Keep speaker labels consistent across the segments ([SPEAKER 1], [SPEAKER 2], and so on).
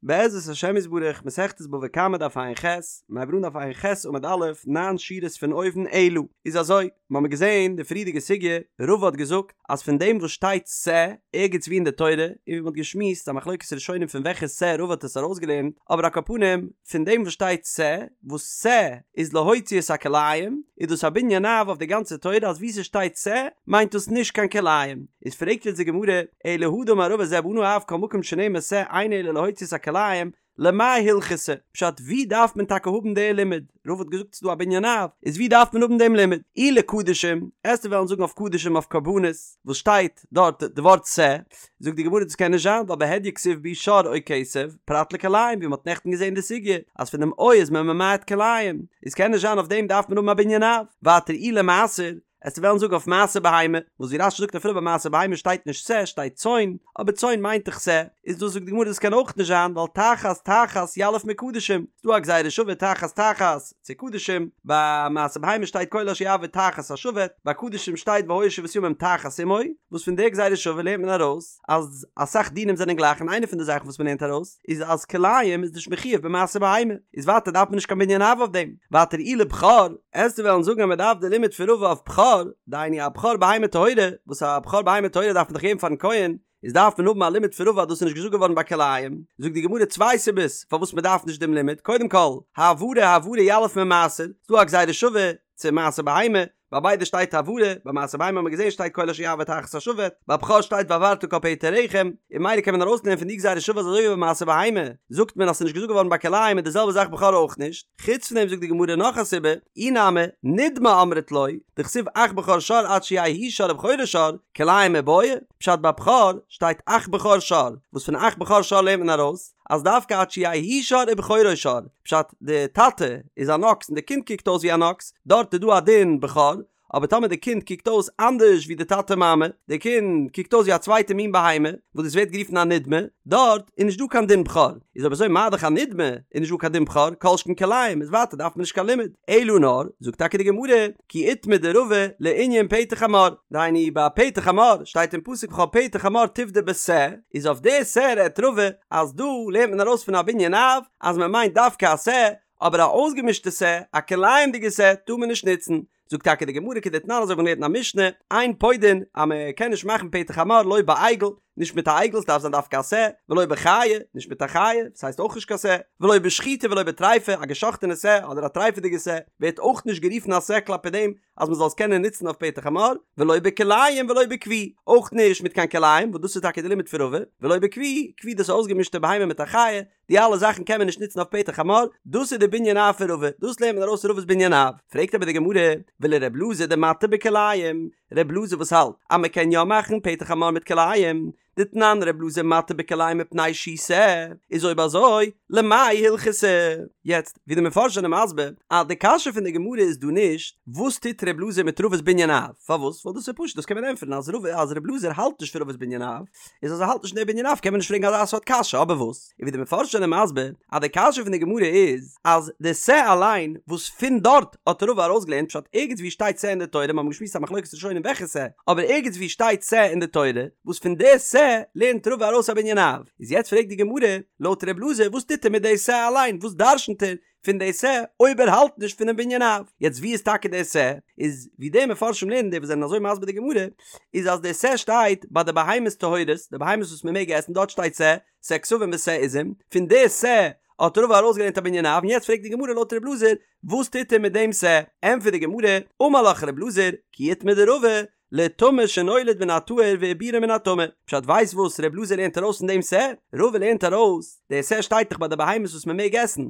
[SPEAKER 1] בעזרת השם יתברך, מסכת בבא קמא דף ע"ח, מיר הייבן אן דף ע"ח עמוד א', ניין שורות פון אויבן אלא. איז אזוי, מיר האבן געזען די פריערדיגע סוגיא, רבא האט געזאגט אז פון דעם וואס שטייט שה ערגעץ וואו אין די תורה, און ווי מען האט געשמועסט א מחלוקת ראשונים פון וועלכע שה רבא האט עס ארויסגעלערנט, אבער על כל פנים, פון דעם וואס שטייט שה, וואס שה איז להוציא את הכלאים, איז דאס א בנין אב אויף די גאנצע תורה אז וואו ס'שטייט שה מיינט דאס נישט קיין כלאים. איז פרעגט יעצט די גמרא, אלא הא דאמר רבא זה בנה אב כל מקום שנאמר שה אינו אלא להוציא את הכלאים, למאי הלכתא? פשט ווי דארף מען טאקע האבן די לימוד? רבא האט געזאגט ס'איז דא א בנין אב, איז ווי דארף מען האבן דעם לימוד? אי לקדשים, עסטו וועלן זאגן אויף קדשים אויף קרבנות, וואס שטייט דארט די ווארט שה, זאגט די גמרא דאס קען נישט זיין ווייל בהדיא כתיב בהו שור או כשב, פרט לכלאים ווי מ'האט נעכטן געזען די סוגיא אז פון דעם או איז מען ממעט כלאים, איז קען נישט זיין אויף דעם דארף מען האבן א בנין אב, ווייטער אי למעשר, עסטו וועלן זאגן אויף מעשר בהמה, וואס ווי רש"י זאגט אפילו ביי מעשר בהמה שטייט נישט שה שטייט צאן, אבער צאן מיינט דאך שה, איז דאס זאגט די גמרא דאס קען אויך נישט זיין ווייל תחת תחת יליף מקדשים, ס'דא א גזירה שווה תחת תחת צו קדשים, ביי מעשר בהמה שטייט כל אשר יעבור תחת השבט, ביי קדשים שטייט והיה שבעת ימים תחת אמו, וואס פון די גזירה שווה לערנט מען ארויס אז אסאך דינים זענען גלייך און איינע פון די זאכן וואס מען לערנט ארויס איז אז כלאים איז נישט מחויב במעשר בהמה, איז ווייטער דארף מען נישט קיין בנין אב אויף דעם, ווייטער אי לבכור, עסטו וועלן זאגן אז מען דארף די לימוד פון רבא אויף בכור, דהיינו א בכור בהמה טהורה, וואס א בכור בהמה טהורה דארף מען דאך געבן פארן כהן, איז דארף מען האבן א לימוד פון רבא אז דאס איז נישט געזאגט געווארן ביי כלאים, זאגט די גמרא צוויי סיבות פארוואס מען דארף נישט דעם לימוד, קודם כל, העברה העברה יליף ממעשר, ס'דא א גזירה שווה צו מעשר בהמה, ביי ביידע שטייט העברה, ביי מעשר בהמה האט מען געזען שטייט כל אשר יעבור תחת השבט, ביי בכור שטייט והעברת כל פטר רחם, און ממילא קען מען ארויסלערנען פון די גזירה שווה אז אזוי ווי ביי מעשר בהמה זאגט מען אז ס'איז נישט געזאגט געווארן ביי כלאים איז די זעלבע זאך בכור אויך נישט, חוץ פון דעם זאגט די גמרא נאך א סיבה, אי נמי, נדמה אמרת לא, דכתיב אך בכור שור עד שיהא הוא שור ובכורו שור, כלאים מיבעיא, פשט ביי בכור שטייט אך בכור שור, וואס פון אך בכור שור לערנט מען ארויס אז דווקא עד שיהא הוא שור ובכורו שור, פשט די טאטע איז אן אקס און די קינד קוקט אויס ווי אן אקס, דארט איז דא א דין בכור, אבער טאמער די קינד קוקט אויס אנדערש ווי די טאטע מאמע, די קינד קוקט אויס ווי א צווייטע מין בהמה, וואס דאס ווערט גערופן א נדמה, דארט איז נישט דא קיין דין בכור, איז אויב אזוי מה דאך א נדמה איז נישט דא קיין דין בכור, כל שכן כלאים, איז ווייטער דארף מען נישט קיין לימוד, אלא נאר, זאגט טאקע די גמרא, כי איתמר דרבא לענין פטר חמור, דהיינו ביי פטר חמור שטייט אין פסוק וכל פטר חמור תפדה בשה, איז אויף די שה רעדט רבא אז דא לערנט מען ארויס פון א בנין אב אז מען מיינט דווקא א שה, אבער א אויסגעמישטע שה, א כלאים'דיגע שה, טאר מען נישט נוצן. זאגט טאקע די גמרא כדתנן אזוי ווי מ'לערנט אין א משנה, אין פודין, אז מען קען נישט מאכן פטר חמור לא בעגל, נישט מיט א עגל, ס'דארף זיין דווקא א שה, ולא בחיה, נישט מיט א חיה, וואס הייסט אויך נישט קיין שה, ולא בשחוטה ולא בטריפה, א געשאכטענע שה אדער א טרייפעדיגע שה ווערט אויך נישט גערופן א שה כלפי דעם אז מען זאל עס קענען נוצן אויף פטר חמור, ולא בכלאים ולא בכוי, אויך נישט מיט קיין כלאים, וואס דאס איז טאקע די לימוד פון רבא, ולא בכוי, כוי דאס איז אויסגעמישטע בהמה מיט א חיה, די אלע זאכן קען מען נישט נוצן אויף פטר חמור, דאס איז די בנין אב פון רבא, דאס לערנט מען ארויס רבא'ס בנין אב. פרעגט אבער די גמרא, ולר' אלעזר דמתיר בכלאים, ר' אלעזר וואס האלט אז מען קען יא מאכן פטר חמור מיט כלאים, דתנן ר' אלעזר מתיר בכלאים מפני שהוא שה, איז אויב אזוי למאי הלכתא? יעצט, ווי די מפרשים זענען מסביר, אז די קשיא פון די גמרא איז דא נישט, וואס טוט ר' אלעזר מיט רבא'ס בנין אב? פארוואס? ווייל דאס איז פשוט, דאס קען מען ענטפערן אז רבא אז ר' אלעזר האלט נישט פון רבא'ס בנין אב, איז אז ער האלט נישט פון די בנין אב קען מען נישט פרעגן אזא סארט קשיא, אבער וואס? און ווי די מפרשים זענען מסביר אז די קשיא פון די גמרא איז אז די שה אליין וואס פון דארט האט רבא ארויסגעלערנט פשט ערגעץ ווי שטייט שה אין די תורה, מיר האבן געשמועסט א מחלוקת ראשונים וועלכע שה, אבער ערגעץ ווי שטייט שה אין די תורה וואס פון די שה לערנט רבא ארויס א בנין אב, איז יעצט פרעגט די גמרא לויט ר' אלעזר וואס טוט ער מיט די שה אליין וואס דרשנ'ט ער פון די שה אויב ער האלט נישט פונעם בנין אב. יעצט ווי איז טאקע די שה? איז ווי די מפרשים לערנען די וואס זענען אזוי מסביר די גמרא איז אז די שה שטייט ביי די בהמות טהורות די בהמות וואס מען מעג עסן דארט שטייט שה שה כשבים ושה עזים פון די שה האט רבא ארויסגעלערנט א בנין אב און יעצט פרעגט די גמרא לויט ר' אלעזר וואס טוט ער מיט דעם שה? ענטפערט די גמרא אמר לך ר' אלעזר כי איתמר דרבא לטמא שנולד מן הטהור ועיבורו מן הטמא. פשט ווייסט וואס ר' אלעזר לערנט ארויס פון דעם שה? רבא לערנט ארויס, דער שה שטייט דאך ביי די בהמות וואס מען מעג עסן,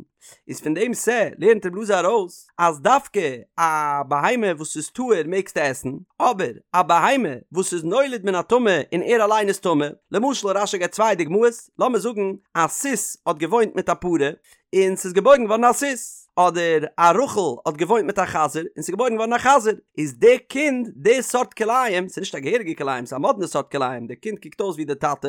[SPEAKER 1] איז פון דעם שה לערנט ר' אלעזר ארויס אז דווקא א בהמה וואס איז טהור מעגסטו עסן, אבער א בהמה וואס איז נולד מן הטמא און ער אליין איז טמא, למשל רש"י געבט צוויי דוגמאות, לאמיר זאגן א סוס האט געוואוינט מיט א פרה, און ס'איז געבוירן געווארן א סוס, אדער א רחל האט געוואוינט מיט א חזיר און ס'איז געבוירן געווארן א חזיר, איז די קינד די סארט כלאים, ס'איז נישט א געהעריגע כלאים, ס'איז א מאדנע סארט כלאים, די קינד קוקט אויס ווי די טאטע,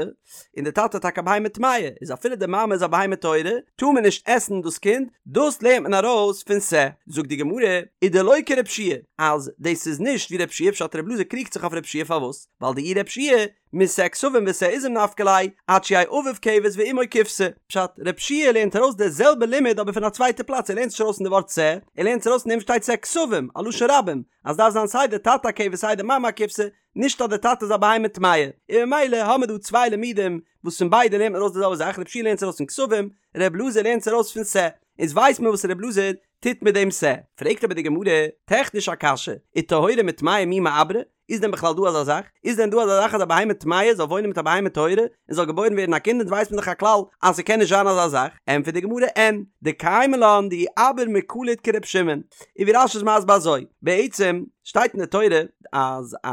[SPEAKER 1] און די טאטע איז טאקע א בהמה טמאה, איז אפילו די מאמע איז א בהמה טהורה, טאר מען נישט עסן דאס קינד, דאס לערנט מען ארויס פון שה. זאגט די גמרא, ודלא כרב שיע, אז דאס איז נישט ווי רב שיע, פשט רב אלעזר קריגט זיך אויף רב שיע פארוואס? ווייל דאי רב שיע. משה כשבים ושה עזים נפקא ליה, עד שיהא אביו כבש ואמו כבשה. פשט, רב שיע לערנט ארויס די זעלבע לימוד אבער פון א צווייטע פלאץ, ער לערנט נישט ארויס פון די ווארט שה, ער לערנט עס ארויס פון דעם וואס שטייט שה כשבים, א לשון רבים, אז דארף זיין סיי די טאטע א כבש סיי די מאמע א כבשה, נישט אז די טאטע איז א בהמה טמאה, און ממילא האמיר דא צוויי לימודים וואס פון ביידע לערנט מען ארויס די זעלבע זאך, רב שיע לערנט עס ארויס פון כשבים, ר' אלעזר לערנט עס ארויס פון שה, איז ווייסט מען וואס ר' אלעזר טוט מיט דעם שה. פרעגט אבער די גמרא, טעכניש א קשיא, וטהורה מטמאה מי מיעברא? איז דען בכלל דא אזא זאך? איז דען דא אזא זאך אז א בהמה טמאה זאל וואוינען מיט א בהמה טהורה און זאל געבוירן ווערן א קינד? אונז ווייסט מען דאך א כלל אז ס'קען נישט זיין אזא זאך. ענטפערט די גמרא, אין, דקיימא לן דאי אביר מקליט כר' שמעון. און ווי רש"י איז מסביר אזוי, בעצם שטייט אין די תורה אז א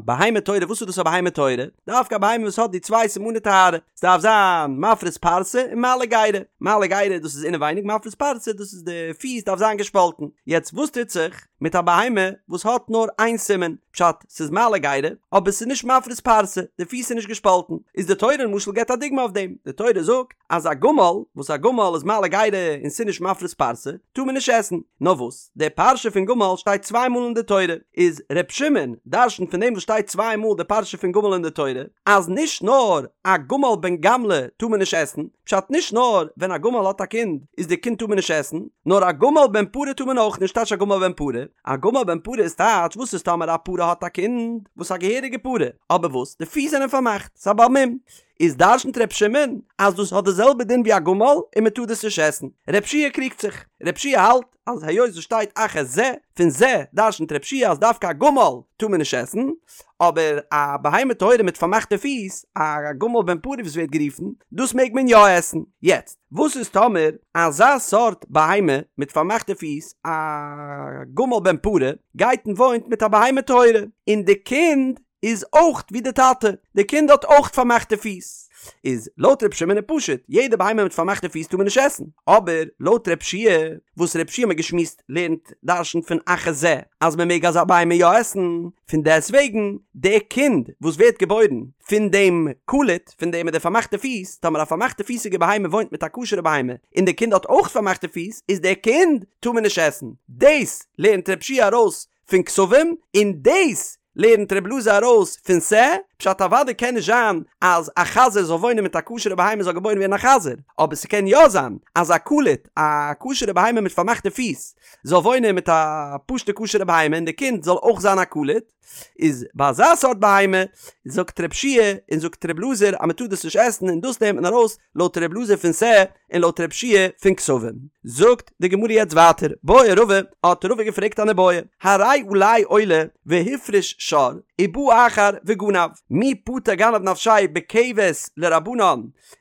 [SPEAKER 1] בהמה טהורה, וואס איז דאס א בהמה טהורה? דווקא א בהמה וואס האט די צוויי סימני טהרה, ס'דארף זיין מפריס פרסה און מעלה גרה, מעלה גרה דאס איז אינעווייניג, מפריס פרסה דאס איז די פיס דארף זיין געשפאלטן, יעצט וואס טוט זיך מיט א בהמה וואס האט נאר איין סימן, פשט ס'איז מעלה גרה אבער ס'איז נישט מפריס פרסה, די פיס איז נישט געשפאלטן, איז די תורה למשל געבט א דוגמא אויף דעם, די תורה זאגט אז א גמל, וואס א גמל איז מעלה גרה און ס'איז נישט מפריס פרסה, טאר מען נישט עסן. נאר וואס, די פרשה פון גמל שטייט צוויי מאל אין די תורה, איז ר' שמעון דרש'נט פון דעם וואס שטייט צוויי מאל די פרשה פון גמל אין די תורה, אז נישט נאר א גמל בן גמלא טאר מען נישט עסן, פשט נישט נאר ווען א גמל האט א קינד איז די קינד טאר מען נישט עסן, נאר א גמל בן פרה טאר מען אויך נישט, טייטש א גמל בן פרה? א גמל בן פרה איז טייטש וואס איז טאמער א פרה האט א קינד וואס א געהעריגע פרה, אבער וואס די פיס זענען פארמאכט, ס'איז א בעל מום, איז דרש'נט ר' שמעון אז דאס האט די זעלבע דין ווי א גמל און מען טאר דאס נישט עסן. ר' שיע קריגט זיך. ר' שיע האלט אז היות עס שטייט אך את זה, פון זה דרש'נט ר' שיע אז דווקא א גמל טאר מען נישט עסן, אבער א בהמה טהורה מיט פארמאכטע פיס, א גמל בן פרה ווי עס ווערט גערופן, דאס מעג מען יא עסן. יעצט, וואס איז טאמער אזא סארט בהמה מיט פארמאכטע פיס, א גמל בן פרה, גייט און וואוינט מיט א בהמה טהורה, און די קינד איז אויך ווי די טאטע, די קינד האט אויך פארמאכטע פיס, איז לויט ר' שמעון איז פשוט, יעדע בהמה מיט פארמאכטע פיס טאר מען נישט עסן, אבער לויט ר' שיע, וואס ר' שיע האט מען געשמועסט לערנט דרש'נט פון אך את זה אז מען מעג אזא בהמה יא עסן, פון דעסט וועגן די קינד וואס ווערט געבוירן פון דעם קלוט, פון דעם מיט די פארמאכטע פיס, טאמער א פארמאכטע פיסיגע בהמה וואוינט מיט א כשר'ע בהמה, און די קינד האט אויך פארמאכטע פיס, איז די קינד טאר מען נישט עסן, דאס לערנט ר' שיע ארויס פון כשבים, און דאס לערנט ר' אלעזר ארויס פון שה, פשט אוודאי קען נישט זיין אז א חזיר זאל וואוינען מיט א כשר'ע בהמה זאל געבוירן ווערן א חזיר, אבער ס'קען יא זיין אז א קלוט, א כשר'ע בהמה מיט פארמאכטע פיס, זאל וואוינען מיט א פשוט'ע כשר'ע בהמה און די קינד זאל אויך זיין א קלוט, איז ביי אזא סארט בהמה זאגט ר' שיע און זאגט ר' אלעזר אז מ'טאר דאס נישט עסן און דאס לערנט מען ארויס לויט ר' אלעזר פון שה און לויט ר' שיע פון כשבים. זאגט די גמרא יעצט ווייטער, בעי רבא, האט רבא געפרעגט אן איבעיא, הרי עלי עולה והפריש שור, ובא אחר וגנב, מי פטר גנב נפשיה בכבש לרבנן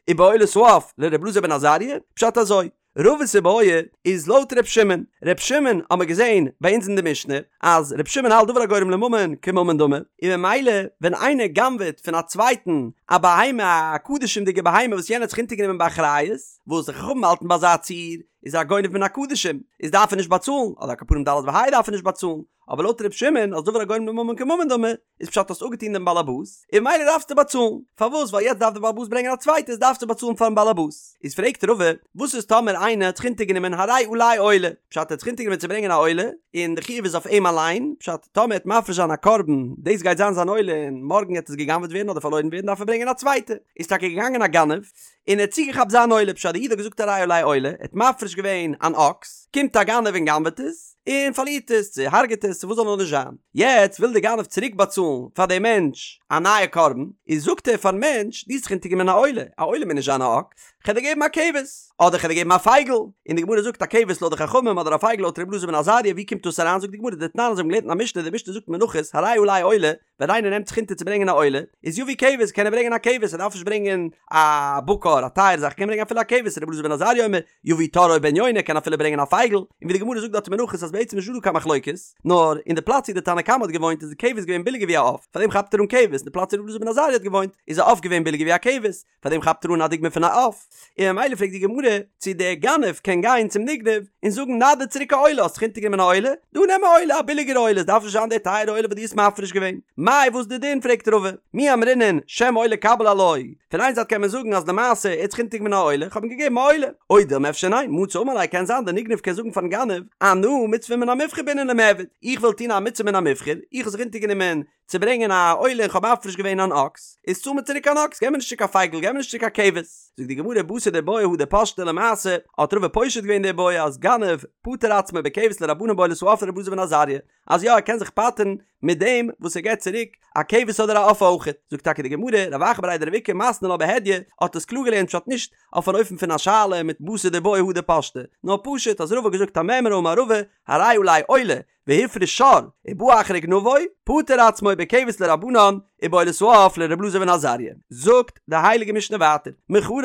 [SPEAKER 1] ובעולת העוף לר' אלעזר בן עזריה? פשט אזוי, רבא'ס איבעיא איז לויט ר' שמעון, ר' שמעון האמער געזען ביי אונז אין די משנה אז ר' שמעון האלט דבר הגורם לממון כממון דמי, און ממילא ווען איינער גנב'עט פון א צווייטן א בהמה א קדשים'דיגע בהמה וואס יענער האט זיך אונטערגענומען באחריות, וואס די חכמים האלטן ביי אזא ציור איז ער א גונב מן הקדשים איז דארף ער נישט באצאלן, אדער על כל פנים ד' וה' דארף ער נישט באצאלן, אבער לויט ר' שמעון אז דבר הגורם לממון כממון דמי, איז פשט האסט אפגעטון דעם באלעבאס, און ממילא דארפסטו באצאלן. פארוואס? ווייל יעצט דארף דער באלעבאס ברענגען א צווייטע איז דארפסטו באצאלן פארן באלעבאס. איז פרעגט רבא, וואס איז טאמער איינער האט זיך אונטערגענומען הרי עלי עולה, פשט ער האט זיך אונטערגענומען צו ברענגען א עולה, און די חיוב איז אויף אים אליין, פשט טאמער ער וועט מפריש זיין א קרבן, דאס גייט זיין זיין עולה און מארגן גייט עס גע'גנב'עט ווערן אדער פארלוירן ווערן דארף ער ברענגען א צווייטע. איז טאקע געגאנגען א גנב, און ער האט צוגעכאפט זיין עולה, פשט די איד האט געזאגט הרי עלי עולה, ער האט מפריש געווען אן אקס, קומט א גנב און גנב'עט עס, און פארלירט עס, צו הרג'עט עס, צו וואס זאל נאר נישט זיין. יעצט וויל די גנב צוריק באצאלן פאר דעם מענטש א נייע קרבן, איז זאגט ער פארן מענטש, דו האסט זיך אונטערגענומען א עולה, א עולה מוז נישט זיין א אקס, כ'על דיר געבן א כבש, אדער כ'על דיר געבן א פייגל, און די גמרא זאגט א כבש לויט די חכמים אדער א פייגל לויט ר' אלעזר בן עזריה, ווי קומט דאס אריין, זאגט די גמרא דתנן אזוי האבן געלערנט אין א משנה, די משנה זאגט מנחות, הרי עלי עולה, ווען איינער נעמט זיך אונטער צו ברענגען א עולה, איז יביא כבש, קען ער ברענגען א כבש, ער דארף נישט ברענגען א בקר, א טייערע זאך, ער קען ברענגען אפילו א כבש, רבי אלעזר בן עזריה אומר, יביא תור או בן יונה, קען אפילו ברענגען א פייגל, און ווי די גמרא זאגט דארט אין מנחות אז בעצם איז נישטא דא קיין מחלוקת, נאר אין די פלאץ ווי די תנא קמא האט געוואוינט איז די כבש געווען ביליגער ווי א עוף, פארדעם כאפט ער אן כבש, אין די פלאץ ווי רבי אלעזר בן עזריה האט געוואוינט איז א עוף געווען ביליגער ווי א כבש, פאר דעם כאפט ער אן א דוגמא פון א עוף, און ממילא פרעגט די גמרא צו דער גנב קען גיין צום נגנב און זאגן נא דיר צוריק א עולה, האסט זיך אונטערגענומען א עולה, דא נעם א עולה, א ביליגערע עולה, עס דארף נישט זיין די טייערע עולה וואס דו האסט מפריש געווען. מאי וואס די דין פרעגט רבא, מי אמרינן שם עולה קביל עילואי, פון איין זייט קען מען זאגן אז למעשה ער האט זיך אונטערגענומען א עולה, איך האב אים געגעבן א עולה, או דילמא אפשר ניין, מצי אמר ליה קען זיין דער נגנב קען זאגן פארן גנב, אנא מצוה מן המובחר בעינא למעבד, איך וויל טון א מצוה מן המובחר, איך האב זיך אונטערגענומען. צו ברענגען א עולה און כ'האב מפריש געווען אן אקס, איז צאל מיר צוריק אן אקס, געב מיר נישט צוריק א פייגל, געב מיר נישט צוריק א כבש. זאגט די גמרא בתר דבעיא הדר פשטה למעשה, האט רבא פושט געווען די בעיא אז גנב פטר עצמו בכבש לרבנן בעולת העוף לרבי אלעזר בן עזריה, אז יא ער קען זיך פטר'ן מיט דעם וואס ער געבט צוריק א כבש אדער א עוף אויכעט. זאגט טאקע די גמרא, רב אחא בריה דרב איקא מתני לה בהדיא, האט עס קלאר געלערנט פשט נישט אויף אן אופן פון א שאלה מיט בתר דבעיא הדר פשטה, נאר פשוט אז רבא האט געזאגט א מימרא אמר רבא, הרי עלי עולה, והפריש שור, ובא אחר וגנבו, פטר עצמו בכבש לרבנן, ובעולת העוף לר' אלעזר בן עזריה. זאגט די הייליגע משנה ווייטער, מכרו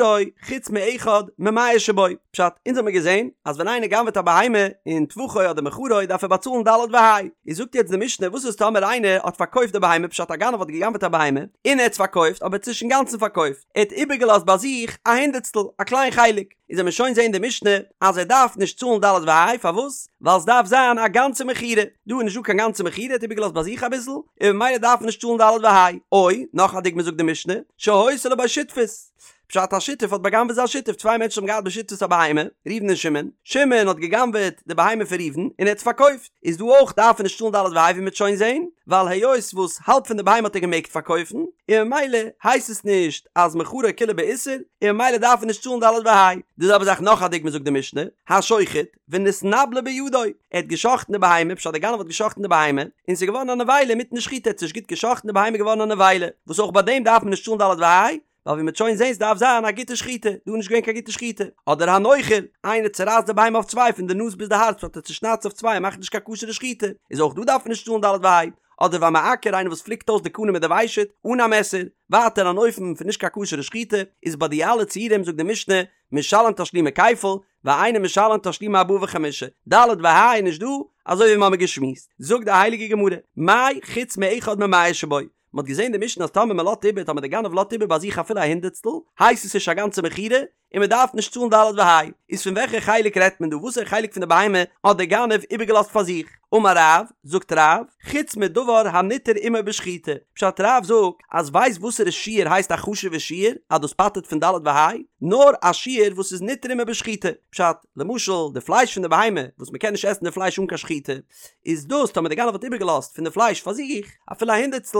[SPEAKER 1] חוץ מאחד ממאה שבו, פשט, אונז האמיר געזען אז ווען איינער גנב'עט א בהמה און טבחו אדער מכרו דארף ער באצאלן ד' וה', איז זאגט יעצט די משנה וואס איז טאמער איינער האט פארקויפט די בהמה פשט א גנב האט געגנב'עט א בהמה און ער האט עס פארקויפט אבער ער האט עס נישט אינגאנצן פארקויפט, ער האט איבערגעלאזט ביי זיך א הונדערטסטל, א קליין חלק, איז וועמיר שוין זעהן די משנה אז ער דארף נישט צאלן ד' וה', פארוואס? ווייל סדארף זיין א גאנצע מכירה, דא איז נישט דא קיין גאנצע מכירה, ער האט איבערגעלאזט ביי זיך אביסל, און ממילא דארף ער נישט צאלן ד' וה'. או, נאך א דוגמא זאגט די משנה, שהיתה לו בו שותפות, פשט א שותף האט בא'גנב'עט זיין שותף, צוויי מענטשן האבן געהאט בשותפות א בהמה, ראובן און שמעון, שמעון האט גע'גנב'עט די בהמה פון ראובן און ער האט עס פארקויפט, איז דא אויך דארף ער נישט צאלן ד' וה' ווי מ'וועט שוין זעהן, ווייל היות וואס האלב פון די בהמה האט ער געמעגט פארקויפן, און ממילא הייסט עס נישט אז מכרו כולו באיסור, און ממילא דארף ער נישט צאלן ד' וה'. די זעלבע זאך נאך א דוגמא זאגט די משנה, השוחט ונתנבלה בידו, ער האט גע'שחט'ן די בהמה, פשט די גנב האט גע'שחט'ן די בהמה, און ס'איז געווארן א נבילה אינמיטן די שחיטה, ער האט עס נישט גוט גע'שחט'ן די בהמה איז געווארן א נבילה, וואס אויך ביי דעם דארף מען נישט צאלן ד' וה', ווייל ווי מ'וועט שוין זעהן ס'דארף זיין א גוטע שחיטה, דא איז נישט געווען קיין גוטע שחיטה. אדער הנוחר, איינער צורייסט די בהמה אויף צוויי פון די נאז ביז די הארץ פשט ער צושניידט עס אויף צוויי און מאכט נישט קיין כשר'ע שחיטה, איז אויך דא דארף מען נישט צאלן ד' וה'. אדער והמעקר, איינער וואס פליקט אויס די קנה מיט די ושט, אן א מעסער, ווייטער אן אופן פון נישט קיין כשר'ע שחיטה, איז ביי די אלע ציורים זאגט די משנה, משלם תשלומי כפל, ואינו משלם תשלומי ארבעה וחמישה, ד' וה' איז נישט דא, אזוי ווי מ'האמיר געשמועסט. זאגט די הייליגע גמרא, מאי חוץ מאחד ממאה שבו, מען האט געזען די משנה אז טאמער מען לאזט איבער טאמער די גנב לאזט איבער ביי זיך אפילו א הונדערטסטל הייסט עס נישט א גאנצע מכירה און מען דארף נישט צאלן ד' וה' איז פון וועלכע חלק רעדט מען דא וואסערע חלק פון די בהמה האט די גנב איבערגעלאזט פאר זיך אמר רב זאגט רב חוץ מדבר הניתר עמו בשחיטה פשט רב זאגט אז ווייסט וואסערע שיעור הייסט א חשובע שיעור אז דאס פטר'ט פון ד' וה' נאר א שיעור וואס איז ניתר עמו בשחיטה פשט למשל די פלייש פון די בהמה וואס מען קען נישט עסן די פלייש אן קיין שחיטה איז דאס טאמער די גנב האט איבערגעלאזט פון די פלייש פאר זיך אפילו א הונדערטסטל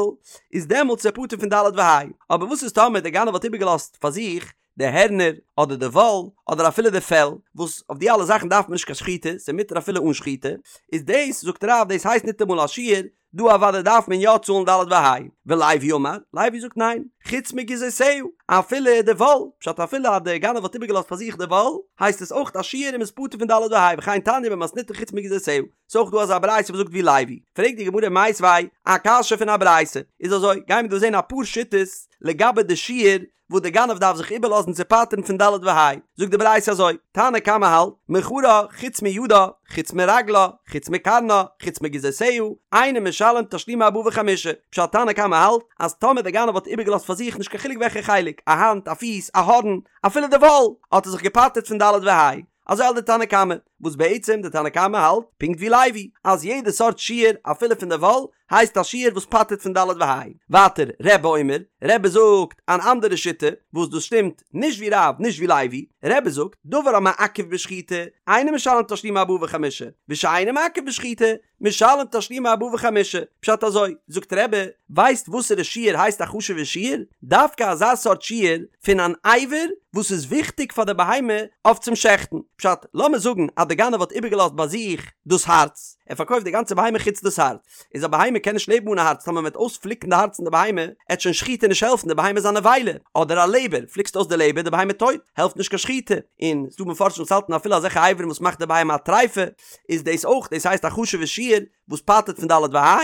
[SPEAKER 1] איז דעמאלטס איז ער פטור פון ד' וה' אבער וואס איז טאמער די גנב האט איבערגעלאזט פאר זיך די הערנער אדער די וואל אדער אפילו די פעל וואס אויף די אלע זאכן דארף מען נישט קיין שחיטה ס'איז מותר אפילו אן שחיטה איז דאס זאגט רב דאס הייסט ניטאמאל א שיעור דא אוודאי דארף מען יא צאלן ד' וה' ולוי אמר, לוי זאגט ניין, חוץ מגיזותיה, אפילו די וואל, פשט אפילו אז דער גנב האט איבערגעלאזט פאר זיך די וואל, הייסט עס אויך א שיעור און מ'איז פטור פון ד' וה' וכן תניא במתניתא חוץ מגיזותיה, ס'איז אויך דא אזא ברייתא וואס זאגט ווי לוי, פרעגט די גמרא מיתיבי א קשיא פון א ברייתא, איז אזוי, גיימיר דא זען אפאר שיטות לגבי די שיעור וואס די גנב דארף זיך איבערלאזן צו פטר'ן פון ד' וה', זאגט די ברייתא אזוי, תנא קמא האלט, מכרה, חוץ מידה, חוץ מרגלה, חוץ מקרנה, חוץ מגיזותיה, אינו משלם תשלומי ארבעה וחמישה, פשט תנא קמא האלט, אז טאמער די גנב האט איבערגעלאזט פאר זיך נישט קיין חילוק וועלכע חלק, א האנט, א פיס, א הארן, אפילו די וואל, האט ער זיך געפטר'ט פון ד' וה'. אזוי האלט די תנא קמא, וואס בעצם די תנא קמא האלט פונקט ווי לוי, אז יעדע סארט שיעור אפילו פון די וואל הייסט א שיעור וואס פטר'ט פון ד' וה'. ווייטער רבי אומר, רבי זאגט אן אנדערע שיטה, וואס דאס שטימט נישט ווי רב נישט ווי לוי, רבי זאגט, דבר המעכב בשחיטה, אינו משלם תשלומי ארבעה וחמישה, ושאינו מעכב בשחיטה, משלם תשלומי ארבעה וחמישה, פשט אזוי, זאגט רבי, ווייסט וואסערע שיעור הייסט א חשוב'ע שיעור? דווקא אזא סארט שיעור פון אן אבר וואס איז וויכטיג פאר די בהמה אויף צום שעכטן, פשט, לאמיר זאגן אז די גנב האט איבערגעלאזט ביי זיך דאס הארץ, ער פארקויפט די גאנצע בהמה חוץ דאס הארץ, איז א בהמה קען נישט לעבן אן א הארץ, טאמער מען וועט אויספליקן די הארץ פון די בהמה, עט שוין שחיטה נישט העלפן, די בהמה איז א נבילה, אדער א לעבער, פליקסט אויס די לעבער, די בהמה טויט, העלפט נישט קיין שחיטה, און ס'דא מפרשים וואס האלטן אפילו אזעלכע אברים וואס מאכט די בהמה א טריפה, איז דאס אויך, דאס הייסט א חשוב'ע שיעור וואס פטר'ט פון ד' וה',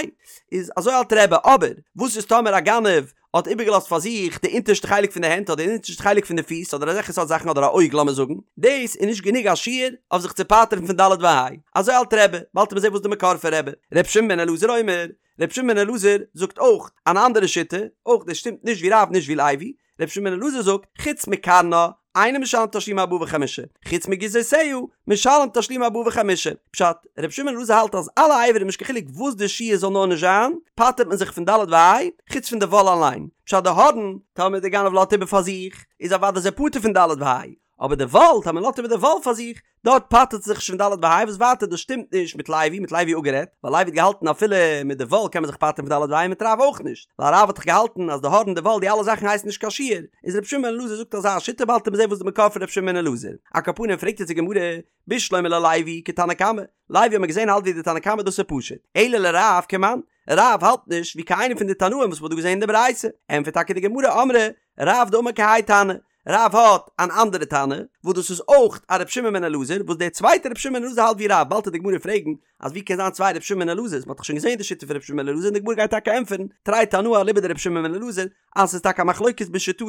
[SPEAKER 1] איז אזוי האלט רבי, אבער וואס איז טאמער א גנב האט איבערגעלאזט פאר זיך די אונטערשטע חלק פון די הענט אדער די אונטערשטע חלק פון די פיס אדער אזעלכע סארט זאכן אדער א אויג לאמיר זאגן, דאס איז נישט גענוג א שיעור אויף זיך צו פטר'ן פון ד' וה', אזוי האלט רבי, באלד וועט מען זען וואס די מקור פון רבי, ר' שמעון בן אלעזר אומר, ר' שמעון בן אלעזר זאגט אויך אן אנדערע שיטה, אויך דאס שטימט נישט ווי רב נישט ווי לוי, ר' שמעון בן אלעזר זאגט, חוץ מקרנה, אינו משלם תשלומי ארבעה וחמישה, חוץ מגיזותיה, משלם תשלומי ארבעה וחמישה. פשט, ר' שמעון בן אלעזר האלט אז אלע אברים נישט קיין חילוק וואס די שיעור זאל נאר נישט זיין, פטר'ט מען זיך פון ד' וה', חוץ פון די וואל אליין. פשט די הארן, טאמער די גנב לאזט איבער פאר זיך, איז אוודאי איז ער פטור פון ד' וה'. אבער די וואל, טאמער לאזט איבער די וואל פאר זיך, דארט פטר'ט זיך נישט פון ד' וה', וואס ווייטער דאס שטימט נישט מיט לוי, מ'האט לוי אפגערעדט, ווייל לוי האט געהאלטן אפילו מיט די וואל קען מען זיך פטר'ן פון ד' וה', מיט רב אויך נישט, ווייל רב האט דאך געהאלטן אז די הארן די וואל די אלע זאכן הייסן נישט קיין שיור, איז ר' שמעון בן אלעזר זאגט אזא שיטה באלד וועט מען זען וואס די מקור פון ר' שמעון בן אלעזר, על כל פנים פרעגט יעצט די גמרא, בשלמא ללוי כתנא קמא, לוי האט מען געזען האלט ווי די תנא קמא דאס איז פשוט, אלא לרב כמאן, רב האלט נישט ווי קיין איינער פון די תנאים וואס מ'האט דא געזען אין די ברייתא, ענטפערט טאקע די גמרא אמרי רב דאמר כהאי תנא, רב האט אן אנדערע תנא, וואס דאס איז אויך א ר' שמעון בן אלעזר, וואס דער צווייטער ר' שמעון בן אלעזר האלט ווי רב, באלד וועט די גמרא פרעגן אז ווי קען זיין צוויי ר' שמעון בן אלעזר'ס, מ'האט דאך שוין געזען די שיטה פון ר' שמעון בן אלעזר און די גמרא גייט טאקע ענטפערן, תרי תנאי אליבא דר' שמעון בן אלעזר, אז ס'איז טאקע א מחלוקת בשיטתו,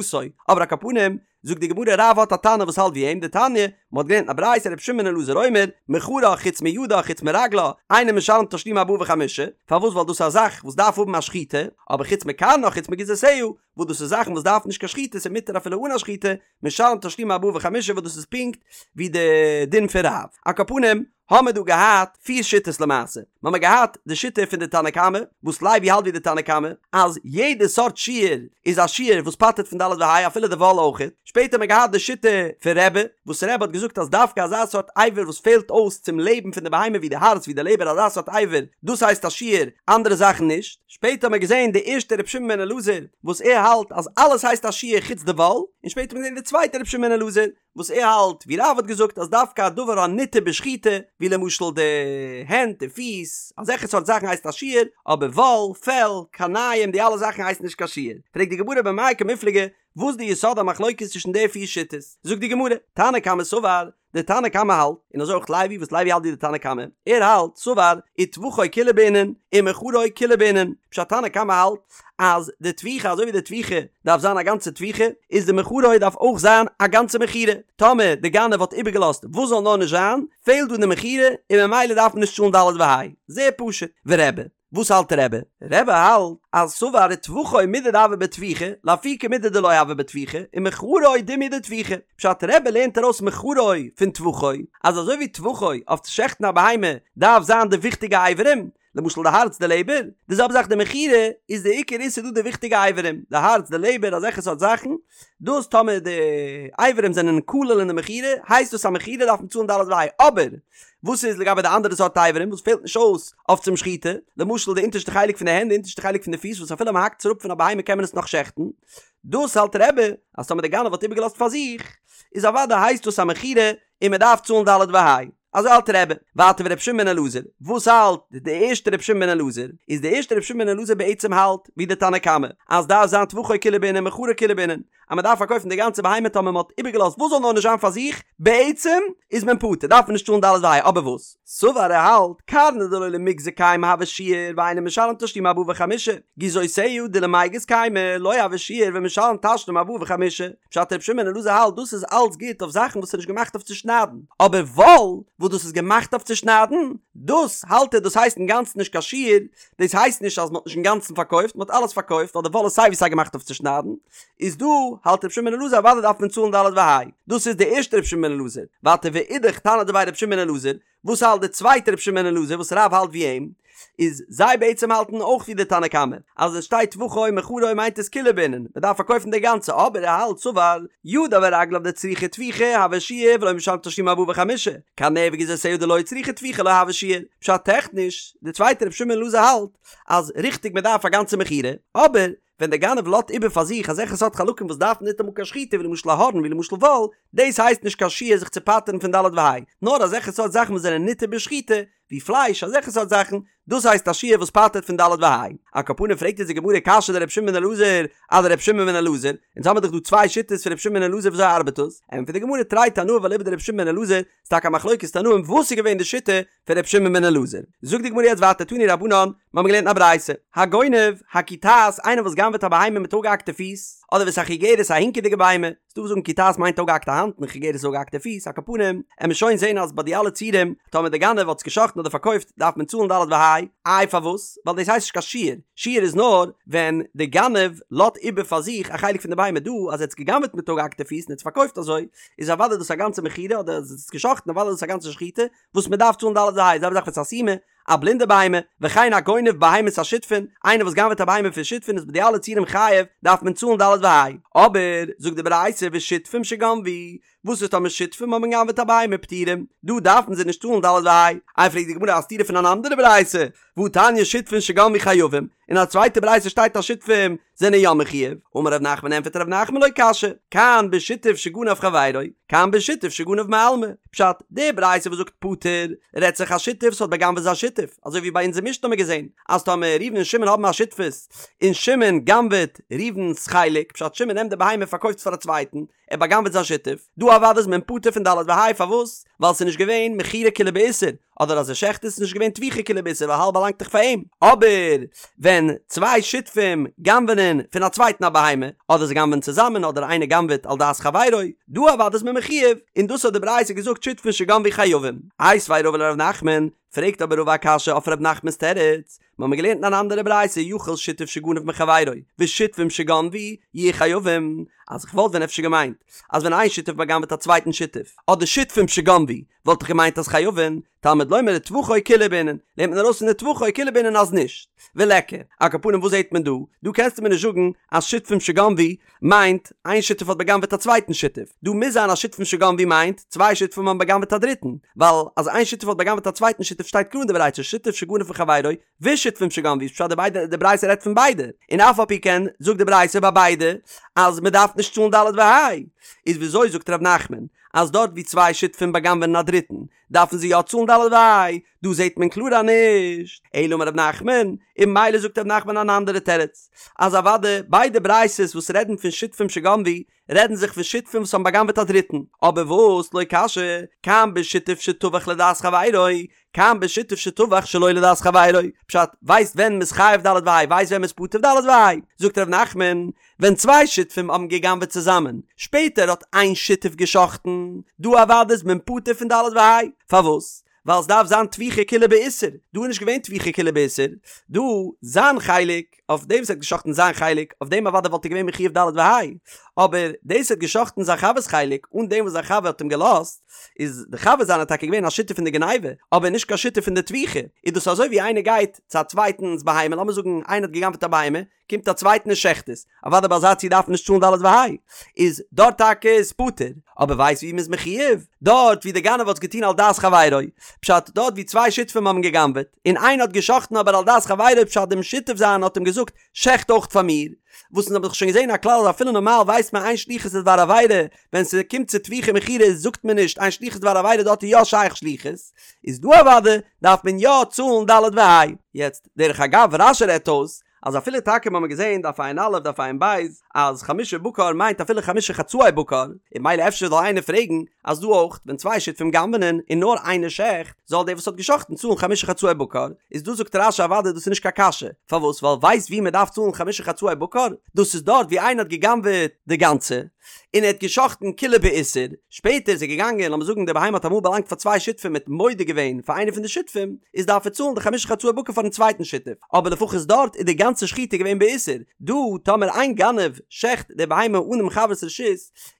[SPEAKER 1] אבער על כל פנים, זאגט די גמרא רב האט א תנא וואס האלט ווי אים, דתניא, מ'האט געלערנט אין א ברייתא ר' שמעון בן אלעזר אומר, מכרה חוץ מידה חוץ מרגלה, אינו משלם תשלומי ארבעה וחמישה, פארוואס ווייל דאס איז א זאך וואס דארף האבן א שחיטה, אבער חוץ מקרנה חוץ מגיזותיה, וואס דאס איז זאכן וואס דארפן נישט קיין שחיטה ס'איז מותר אפילו אן א שחיטה, משלם תשלומי ארבעה וחמישה וואס דאס איז פונקט ווי די דין פון רב. על כל פנים האמער דא געהאט פיר שיטות למעשה. מ'האמער געהאט די שיטה פון די תנא קמא, וואס לוי האלט ווי די תנא קמא, אז יעדע סארט שיור איז א שיור וואס פטר'ט פון ד' וה' אפילו די וואל אויכעט. שפעטער האמער געהאט די שיטה פון רבי, וואס רבי האט געזאגט אז דווקא אזא סארט אבר וואס פעלט אויס צום לעבן פון די בהמה ווי די הארץ ווי די לעבער אזא סארט אבר דאס הייסט א שיור אנדערע זאכן נישט. שפעטער האט מען געזען די ערשטע רבי שמעון בן אלעזר וואס ער האלט אז אלעס הייסט א שיור חוץ די וואל, און שפעטער האט מען געזען די צווייטע רבי שמעון בן אלעזר וואס ער האלט ווי רב האט געזאגט אז דווקא א דבר הניתר בשחיטה ווי למשל די הענט די פיס אזעלכע סארט זאכן הייסט א שיור, אבער וואל, פעל, קרניים די אלע זאכן הייסן נישט קיין שיור. פרעגט די גמרא במאי קמיפלגי וואס די יסוד המחלוקת צווישן די פיר שיטות? זאגט די גמרא, תנא קמא סבר, דער תנא קמא האלט, און אזוי אויך לוי וואס לוי האלט ווי די תנא קמא, ער האלט, סבר, וטבחו כולו בעינן, ומכרו כולו בעינן, פשט תנא קמא האלט אז די טביחה אזוי ווי די טביחה דארף זיין א גאנצע טביחה, איז די מכרו דארף אויך זיין א גאנצע מכירה, טאמער די גנב האט איבערגעלאזט וואס זאל נאר נישט זיין, פעלט דא די מכירה און ממילא דארף מען נישט צאלן ד' וה', זייער פשוט, ורבי. וואס האלט רבי? רבי האלט אז סבר וטבחו מידי דהוה בטביחה, לאפוקי מידי דלא הוה בטביחה, ומכרו דומיא דטביחה. פשט רבי לערנט ארויס מכרו פון טבחו, אז אזוי ווי טבחו אויף צו שעכטן א בהמה דארף זיין די וויכטיגע אברים, למשל די הארץ די לעבער, די זעלבע זאך די מכירה איז די עיקר איסור דא די וויכטיגע אברים, די הארץ די לעבער אזעלכע סארט זאכן, דאס טאמער די אברים זענען כולל אין די מכירה הייסט דאס א מכירה דארף מען צאלן ד' וה', אבער וואס איז לגבי די אנדערע סארט אברים וואס פעלט נישט אויס אויף צום שחיטה, למשל די אונטערשטע חלק פון די הענט די אונטערשטע חלק פון די פיס וואס אפילו מען האקט עס אראפ פון א בהמה קען מען עס נאך שעכטן, דאס האלט רבי אז טאמער די גנב האט איבערגעלאזט פאר זיך איז אוודאי הייסט דאס א מכירה און מען דארף צאלן ד' וה'. אזוי האלט רבי. ווייטער ורבי שמעון בן אלעזר, וואס האלט די ערשטע רבי שמעון בן אלעזר? איז די ערשטע רבי שמעון בן אלעזר בעצם האלט ווי די תנא קמא, אז דארף זיין טבחו כולו בעינן מכרו כולו בעינן, אז מען דארף פארקויפן די גאנצע בהמה טאמער מען האט איבערגעלאזט וואס זאל נאר נישט זיין פאר זיך, בעצם איז מען פטור דארף מען נישט צאלן ד' וה', אבער וואס? סבר ער האלט, קרנה דלא למיגזא קיימא הוי שיור ואינו משלם תשלומי ארבעה וחמישה, גיזותיה דלמיגז קיימא לא הוי שיור ומשלם תשלומי ארבעה וחמישה. פשט רבי שמעון בן אלעזר האלט דאס איז אלץ גוט אויף זאכן וואס איז נישט געמאכט אויף צו שניידן, אבער וואל וואס דאס איז געמאכט אויף צו שניידן, דאס האלט ער דאס הייסט אינגאנצן נישט קיין שיור, דאס הייסט נישט אז מען האט נישט אינגאנצן פארקויפט, מען האט אלעס פארקויפט ווייל די וואל איז סיי ווי סיי געמאכט אויף צו שניידן, איז דא האלט רבי שמעון בן אלעזר אוודאי דארף מען צאלן ד' וה', דאס איז די ערשטע רבי שמעון בן אלעזר, ווייטער ואידך תנא דבי רבי שמעון בן אלעזר, וואס האלט די צווייטע רבי שמעון בן אלעזר וואס רב האלט ווי אים, איז זיי בעצם האלטן אויך ווי די תנא קמא, אז עס שטייט טבחו מכרו מיינט עס כולו בעינן, מען דארף פארקויפן די גאנצע, אבער ער האלט סבר ידיו ורגליו דצריכי טביחה הוי שיור ולא משלם תשלומי ארבעה וחמישה, קרניה וגיזותיה דלא צריכי טביחה לא הוי שיור, פשט טעכניש, די צווייטע רבי שמעון בן אלעזר האלט אז ריכטיג מען דארף א גאנצע מכירה, אבער ווען דער גנב לאזט איבער פאר זיך אזעלכע סארט חלקים וואס דארפן ניטאמאל קיין שחיטה ווי למשל א הארן ווי למשל וואל, דאס הייסט נישט קיין שיור זיך צו פטר'ן פון ד' וה', נאר אזעלכע סארט זאכן וואס זענען ניתר בשחיטה, ווי פלייש, אזעלכע סארט זאכן, דאס הייסט א שיור וואס פטר'ט פון ד' וה'. על כל פנים פרעגט אונז די גמרא קשיא דרבי שמעון בן אלעזר אדרבי שמעון בן אלעזר, אונז האמיר דאך דא צוויי שיטות פון רבי שמעון בן אלעזר וויאזוי ארבעט דאס? ענטפערט די גמרא תרי תנאי ואליבא דרבי שמעון בן אלעזר, ס'איז טאקע א מחלוקת תנאים וואס איז געווען די שיטה פון רבי שמעון בן אלעזר. זאגט די גמרא יעצט ווייטער תנו רבנן, מיר האבן געלערנט א ברייתא, הגונב, הקיטעת, איינער וואס גנב'עט א בהמה מיט אפגעהאקטע פיס, אדער ואת החיגרת א הינקעדיגע בהמה, ס'דא וואס זאגן קיטעת מיינט אפגעהאקטע האנט און חיגרת איז אפגעהאקטע פיס, על כל פנים, עמיר שוין זען אז ביי די אלע ציורים, טאמער דער גנב האט עס גע'שחט'ן אדער פארקויפט דארף מען צאלן ד' וה', איי פארוואס? ווייל דאס הייסט נישט קיין שיור, שיור איז נאר ווען די גנב לאזט איבער פאר זיך א חלק פון די בהמה, דא אז ער האט עס גע'גנב'עט מיט אפגעהאקטע פיס און ער האט עס פארקויפט אזוי, איז אוודאי דאס א גאנצע מכירה אדער אז ער האט עס גע'שחט'ן אוודאי דאס א גאנצע שחיטה, וואס מען דארף צאלן ד' וה', זעלבע זאך ואת הסומא. א בלינדע בהמה, וכן הגונב בהמות השותפין, איינער וואס גנב'עט א בהמה פון שותפין איז ביי די אלע ציורים חייב, דארף מען צאלן ד' וה'. אבער, זאגט די ברייתא ושותפים שגנבו, וואס איז טאמער שותפים האבן גע'גנב'עט א בהמה פטורים, דא דארפן זיי נישט צאלן ד' וה'. איי פרעגט די גמרא א סתירה פון אן אנדערע ברייתא, והתניא שותפין שגנבו חייבים, אין א צווייטע ברייתא שטייט אז שותפים זענען יא מחויב, אמר ר' נחמן ענטפערט ר' נחמן לא קשיא, כאן בשותף שגנב חברו, כאן בשותף שגנב מעלמא, פשט, די ברייתא וואס זאגט פטור, רעדט זיך א שותף וואס האט בא'גנב'עט זיין שותף, אזוי ווי ביי אונזער משנה האבן מיר געזען, אז טאמער ראובן און שמעון האבן א שותפות, און שמעון גנב'עט ראובן'ס חלק, פשט שמעון נעמט די בהמה און פארקויפט עס פאר א צווייטן, ער בא'גנב'עט זיין שותף, דא אוודאי איז מען פטור פון ד' וה', פארוואס? ווייל ס'איז נישט געווען מכירה כולה באיסור, אדער אז ער שעכט עס איז נישט געווען טביחה כולה באיסור ווייל האלב באלאנגט דאך פאר אים, אבער ווען צוויי שותפים גנב'נען פון א צווייטן א בהמה, אדער זיי גנב'ענען צוזאמען אדער איינער גנב'עט על דעת חברו, דא אוודאי איז מען מחויב, און דאס האט די ברייתא געזאגט שותפין שגנבו חייבים. איתיביה רבא לר' נחמן, פרעגט אבער רבא א קשיא אויף ר' נחמנ'ס תירוץ, מיר האבן געלערנט אין אן אנדערע ברייתא יכול שותף שגנב מחבירו ושותפים שגנבו יהיו חייבים, אז איך וואלט ווען אפשר געמיינט אז ווען איין שותף בא'גנב'עט א צווייטן שותף, אדער שותפים שגנבו, וואלט איך געמיינט אז חייבין, תלמוד לומר וטבחו כולו בעינן, לערנט מען ארויס פון וטבחו כולו בעינן אז נישט. וליכא, על כל פנים וואס זעט מען דא? דא קענסטו מיר נישט זאגן אז שותפים שגנבו מיינט איין שותף האט בא'גנב'עט א צווייטן שותף, דא מוז זיין אז שותפים שגנבו מיינט צוויי שותפים האבן בא'גנב'עט א דריטן, ווייל אז איין שותף האט בא'גנב'עט א צווייטן שותף שטייט קלאר אין די ברייתא שותף שגנב מחבירו ושותפים שגנבו איז פשט די ביידע די ברייתא רעדט פון ביידע, און אף על פי כן זאגט די ברייתא ביי ביידע אז מען דארף נישט צאלן ד' וה', איז וויאזוי זאגט ר' נחמן אז דארט ווי צוויי שותפים בא'גנב'ענען א דריטן דארפן זיי יא צאלן ד' וה', דא זעט מען קלאר אז נישט, אלא אמר ר' נחמן, און ממילא זאגט ר' נחמן אן אנדערע תירוץ, אז אוודאי ביידע ברייתות וואס רעדן פון שותפים שגנבו, רעדן זיך פון שותפים וואס האבן בא'גנב'עט א דריטן, אבער וואס לא קשיא, כאן בשותף שטבח לדעת חברו, כאן בשותף שטבח שלא לדעת חברו, פשט, ווייסט ווען מ'איז חייב ד' וה', ווייסט ווען מ'איז פטור ד' וה', זאגט ר' נחמן, ווען צוויי שותפים האבן גע'גנב'עט צוזאמען, שפעטער האט איין שותף גע'שחט'ן, דא אוודאי איז מען פטור פון ד' וה', פארוואס? ווייל עס דארף זיין טביחה כולה באיסור, דא איז נישט געווען טביחה כולה באיסור, דא זיין חלק, אויף דעם וואס ער האט גע'שחט'ן זיין חלק, אויף דעם אוודאי וואלט ער געווען מחויב ד' וה', אבער דאס ער האט גע'שחט'ן זיין חבר'ס חלק, אן דעם וואס זיין חבר האט אים געלאזט, איז די חבר זיינער טאקע געווען א שותף אין די גניבה, אבער נישט קיין שותף אין די טביחה, איז דאס אזוי ווי איינער גייט צו א צווייטנס בהמה, לאמיר זאגן איינער האט גע'גנב'עט א בהמה, קומט א צווייטן און שעכט עס, אוודאי ביי אזא ציור דארף מען נישט צאלן ד' וה', איז דארט טאקע איז פטור, אבער ווייסט ווי מ'איז מחויב? דארט ווי די גנב האט עס געטון על דעת חברו, פשט דארט ווי צוויי שותפים האבן גע'גנב'עט, און איינער האט גע'שחט'ן אבער על דעת חברו פשט דעם שותף זיין האט אים געזאגט שעכט אויך פאר מיר, וואס אונז האבן דאך שוין געזען א כלל אז אפילו נארמאל ווייסט מען אין שליחות לדבר עבירה, ווען ס'קומט צו טביחה ומכירה זאגט מען נישט אין שליחות לדבר עבירה דארט איז יא שייך שליחות, איז דא אוודאי דארף מען יא צאלן ד' וה'. יעצט דרך אגב רש"י רעדט אויס אז אפילו טאקע מ'האמיר געזען דף ע"א דף ע"ב אז חמשה בקר מיינט אפילו חמשה חצאי בקר, און ממילא אפשר זאל איינער פרעגן אז דא אויך ווען צוויי שותפים גנב'נען און נאר איינער שעכט זאל דער וואס האט געשאכטן צאלן חמשה חצאי בקר, איז דא זאגט רש"י אוודאי דאס איז נישט קיין קשיא, פארוואס ווייל ווייסט ווי מ'דארף צאלן חמשה חצאי בקר? דאס איז דארט ווי איינער האט געגנב'עט די גאנצע, און ער האט געשחט'ן כולה באיסור, שפעטער איז ער געגאנגען, לאמיר זאגן די בהמה האט אמאל באלאנגט פאר צוויי שותפים מ'האט מודה געווען פאר איינער פון די שותפים, איז דארף ער צאלן די חמשה חצאי בקר פארן צווייטן שותף, אבער לפחות דארט איז די גאנצע שחיטה געווען באיסור, דא טאמער איין גנב שעכט די בהמה אן דעם חבר'ס רשות,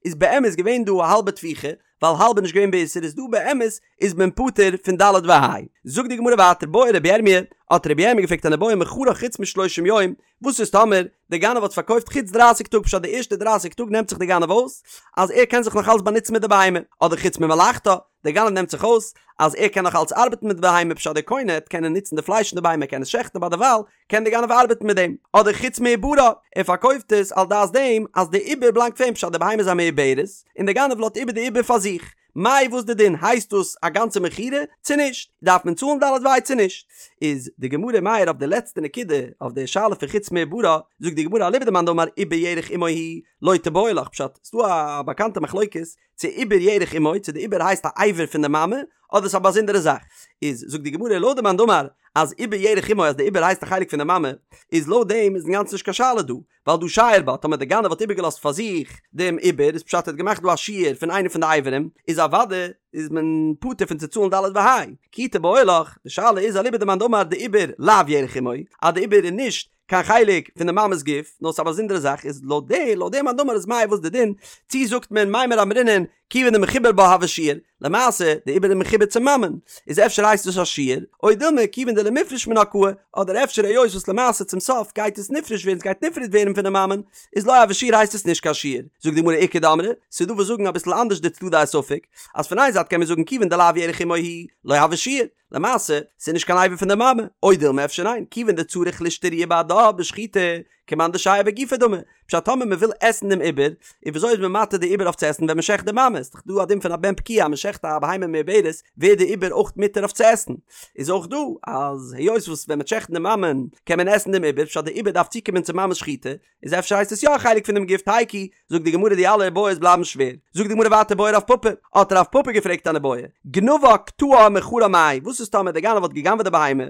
[SPEAKER 1] איז באמת געווען דא א האלבע טביחה, ווייל האלב איז נישט געווען באיסור איז דא באמת איז מען פטור פון ד' וה'. זאגט די גמרא ווייטער בעי רבי ירמי', האט רבי ירמי' געפרעגט אן איבעיא מכרה חוץ משלושים יום, וואס איז טאמער די גנב האט פארקויפט חוץ דרייסיג טאג פשט די ערשטע דרייסיג טאג נעמט זיך די גנב אויס אז ער קען זיך נאך אלץ באנוצן מיט די בהמה, אדער חוץ ממלאכתה, די גנב נעמט זיך אויס אז ער קען נאך אלץ ארבעטן מיט די בהמה פשט די קונה העט קענען נוצן די פלייש פון די בהמה ער קען עס שעכטן אבער דערווייל קען די גנב ארבעטן מיט דעם, אדער חוץ מעוברה, ער פארקויפט עס על דעת דעם אז די עובר בלאנגט פאר אים פשט די בהמה איז א מעוברת און די גנב לאזט איבער די עובר פאר זיך, מאי וואס די דין הייסט דאס א גאנצע מכירה צו נישט? דארף מען צאלן ד' וה' צו נישט? איז די גמרא מעיר אויף די לעצטע נקודה אויף די שאלה פון חוץ מעוברה, זאגט די גמרא אליבא דמאן דאמר עובר ירך אמו הוא לא תיבעי לך פשט ס'דא א באקאנטע מחלוקת צו עובר ירך אמו צו די עובר הייסט א אבר פון די מאמע אדער ס'איז א באזונדערע זאך איז זאגט די גמרא לויט די מאן דאמר אז עובר ירך אמו אז די עובר הייסט א חלק פון די מאמע איז לויט דעם איז אינגאנצן נישט קיין שאלה דא ווייל דהא שייר בה, טאמער דער גנב האט איבערגעלאזט פאר זיך דעם עובר, איז פשט ער האט געמאכט דא א שיור פון איינע פון די אברים, איז אוודאי איז מען פטור פון צו צאלן ד' וה'. כי תיבעי לך, די שאלה איז אליבא דמאן דאמר דעובר לאו ירך אמו, אז די עובר איז נישט קיין חלק פון די מאמע'ס גוף, נאר ס'איז א באזונדערע זאך, איז לויט די לויט די מאן דאמר איז מאי וואס די דין, צי זאגט מען מימר אמרינן, כיוון דמחובר בה הוי שיור, למעשה די עובר איז מחובר צום מאמען, איז אפשר הייסט דאס א שיור, או דילמא כיוון דלמיפרש מינה קאי, אדער אפשר היות וואס למעשה צום סוף גייט עס נפרש ווערן, ס'גייט נפרד ווערן פון די מאמען, איז לא הוי שיור הייסט עס נישט קיין שיור. זאגט די גמרא איכא דאמרי, ס'איז דא וואס זאגן אביסל אנדערש די צדדי הספק, אז פון איין זייט קען מען זאגן כיוון דלאו ירך אמו הוא, לא הוי שיור, למעשה, ס'איז נישט קיין אבר פון די מאמע, או דילמא אפשר ניין, כיוון דצריך לאשתרויי בהדה בשחיטה, כמאן דשייר בגופה דמי, פשט טאמער מ'וויל עסן דעם עובר, און וויאזוי איז מען מתיר די עובר אויף צו עסן ווען מ'שעכט די מאמע, איז דאך דא א דין פון א בן פקיעה אז מ'שעכט א בהמה מעוברת ווערט די עובר אויך מותר אויף צו עסן, איז אויך דא אז היות וואס ווען מ'וועט שעכטן די מאמען קען מען עסן דעם עובר, פשט די עובר דארף צוקומען צום מאמע'ס שחיטה, איז אפשר הייסט עס יא א חלק פונעם גוף תיקו, זאגט די גמרא די אלע איבעיות בלייבן שווער, זאגט די גמרא ווייטער בעי רב פפא, האט רב פפא געפרעגט אן איבעיא, גנבה קטעה ומכרה מאי, וואס איז טאמער דער גנב האט גע'גנב'עט די בהמה,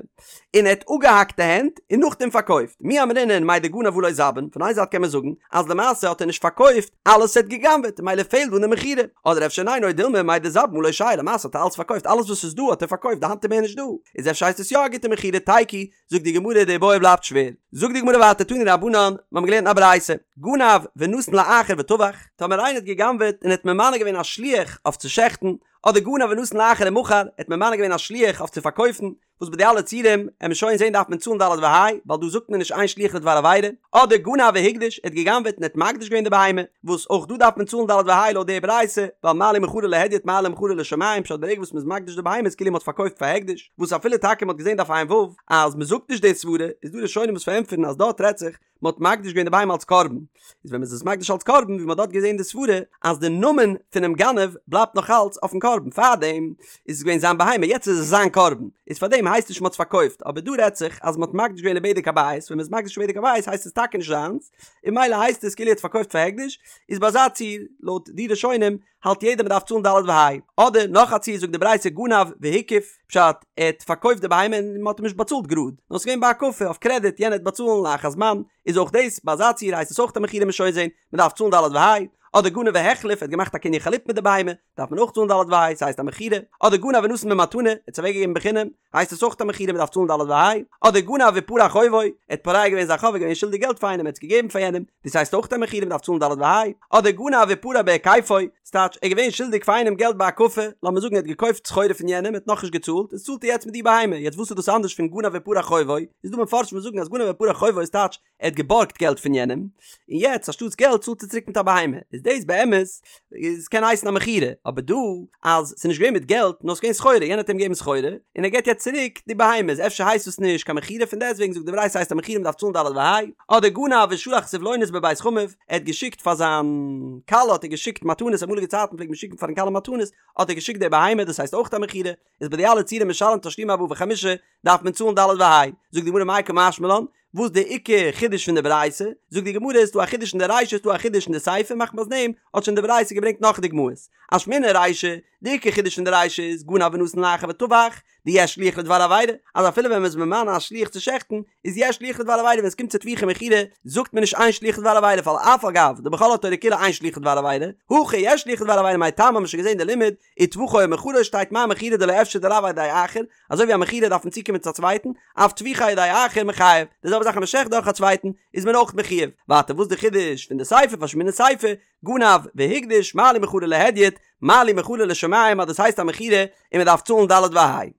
[SPEAKER 1] און ער האט אפגעהאקט די הענט, און נאכדעם פארקויפט, מי אמרינן מאי דגנב הא לא זבין, פון איין זייט קען מען זאגן, אז למעשה האט ער נישט פארקויפט אלעס וואס ער האט גע'גנב'עט, ממילא פעלט דא אין די מכירה, אדער אפשר ניין או דילמא מאי דזבין הא לא שייר, למעשה האט ער אלעס פארקויפט, אלעס וואס איז דא האט ער פארקויפט, די האנט איז מער נישט דא, איז אפשר הייסט עס יא א גוטע מכירה, תיקו, זאגט די גמרא די איבעיא בלייבט שווער, זאגט די גמרא ווייטער תנו רבנן, מיר האבן געלערנט א ברייתא, גנב ונתן לאחר וטבח, טאמער איינער האט גע'גנב'עט און האט ממנה געווען א שליח אויף צו שעכטן, אדער גנב ונתן לאחר ומכר, ער האט ממנה געווען א שליח אויף צו פארקויפן, וואס ביי די אלע ציורים, עמיר שוין זען דארף מען צאלן ד' וה', ווייל דא זאגט מען נישט אין שליח לדבר עבירה, אדער גנב והקדיש, ער האט גע'גנב'עט און האט מקדיש געווען די בהמה, וואס אויך דא דארף מען צאלן ד' וה' לויט די ברייתא, ווייל מה לי מכרו להדיוט מה לי מכרו לשמים, פשט ברגע וואס מ'איז מקדיש די בהמה איז כאילו מ'האט פארקויפט פאר הקדש. וואס אפילו טאקע מ'האט געזען דף ע"ו אז מ'זאגט נישט די סברה, איז דא ראשונים וואס פארענטפערן אז דארט רעדט זיך מ'האט מקדיש געווען די בהמה אלס קרבן, איז ווען מ'איז עס מקדיש אלס קרבן ווי מ'האט דארט געזען די סברה אז די נאמען פונעם גנב בלייבט נאך אלץ אויפן קרבן, פארדעם איז עס געווען זיין בהמה יעצט איז עס זיין קרבן, איז פארדעם הייסט נישט מ'האט עס פארקויפט, אבער דא רעדט זיך אז מ'האט מקדיש געווען לבדק הבית, ווען מ'איז מקדיש לבדק הבית הייסט עס טאקע נישט זיינס, און ממילא הייסט עס כאילו ער האט פארקויפט פאר הקדש, איז ביי אזא ציור לויט די ראשונים האלט יעדער מ'דארף צאלן ד' וה'. אדער נאך א ציור זאגט די ברייתא גנב והקיף, פשט, ער האט פארקויפט די בהמה און מ'האט אים נישט באצאלט גראד, נאר ס'געווען בהקפה אויף קרעדיט יענער וועט באצאלן לאחר זמן, איז אויך דאס ביי אזא ציור הייסט עס אויך א מכירה מ'עט שוין זעהן, מ'דארף צאלן ד' וה'. אדער גנב והחליף, ער האט געמאכט א קנין חליפין מיט די בהמה, דארף מען אויך צאלן ד' וה', ס'הייסט א מכירה. אדער גנב ונתן במתנה, ער האט עס אוועקגעגעבן בחינם, הייסט עס אויך א מכירה מ'דארף צאלן ד' וה'. אדער גנב ופרע חובו, ער האט פורע געווען זיין חוב, ער איז געווען שולדיג געלט פאר איינעם, ער האט עס געגעבן פאר יענעם, דאס הייסט אויך א מכירה מ'דארף צאלן ד' וה'. אדער גנב ופרע בהיקפו, ס'טייטש, ער איז געווען שולדיג פאר איינעם געלט בהקפה, לאמיר זאגן ער האט געקויפט סחורה פון יענעם, ער האט נאכנישט געצאלט, איז צאלט ער יעצט מיט די בהמה, יעצט וואס איז דאס אנדערש פון גנב ופרע חובו? איז דא מפרשים וואס זאגן אז גנב ופרע חובו איז טייטש, ער האט געבארגט געלט פון יענעם, און יעצט אנשטאטס געלט צאלט ער צוריק מיט א בהמה, איז דאס באמת איז קען הייסן א מכירה, אבער דא אז ס'איז נישט געווען מיט געלט נאר ס'איז געווען סחורה, יענער האט אים געגעבן סחורה, און ער געבט יעצט צוריק די בהמה, איז אפשר הייסט דאס נישט קיין מכירה, פון דעסטוועגן זאגט די ברייתא ס'הייסט א מכירה מ'דארף צאלן ד' וה', אדער גנב ושלח סבלונות בבית חמיו, ער האט געשיקט פאר זיין כלה האט ער געשיקט מתנות, אמאליגע צייטן פלעגט מען שיקן פארן כלה מתנות, האט ער געשיקט די בהמה דאס הייסט אויך א מכירה, איז ביי די אלע ציורים משלם תשלומי ארבעה וחמישה דארף מען צאלן ד' וה', זאגט די גמרא מאי קא משמע לן, וואס די עיקר חידוש פון די ברייתא? זאגט די גמרא איז דא א חידוש אין די רישא איז דא א חידוש אין די סיפא מחמת דעם האט שוין די ברייתא געברענגט נאך דוגמאות אשמעינן רישא, די עיקר חידוש פון די רישא איז גנב ונתן לאחר וטבח דיש שליח לדבר עבירה אז אפילו ווען מען איז ממנה א שליח צו שעכטן איז יש שליח לדבר עבירה ווען עס קומט צו טביחה ומכירה זאגט מען נישט אין שליח לדבר עבירה ווייל אף על גב דבכל התורה כולה אין שליח לדבר עבירה הכא יש שליח לדבר עבירה מאי טעמא האט מען שוין געזען די לימוד וטבחו או מכרו שטייט מה מכירה דלא אפשר דלאו על ידי אחר, אזוי ווי א מכירה דארף מען צוקומען צו א צווייטן, אף טביחה על ידי אחר מיחייב, די זעלבע זאך אז מען שעכט דורך א צווייטן איז מען אויך מחויב, ווייטער וואס די חידוש פון די סיפא ואשמעינן סיפא, גנב והקדיש מה לי מכרו להדיוט, מה לי מכרו לשמים אז דאס הייסט א מכירה און מען דארף צאלן ד' וה'.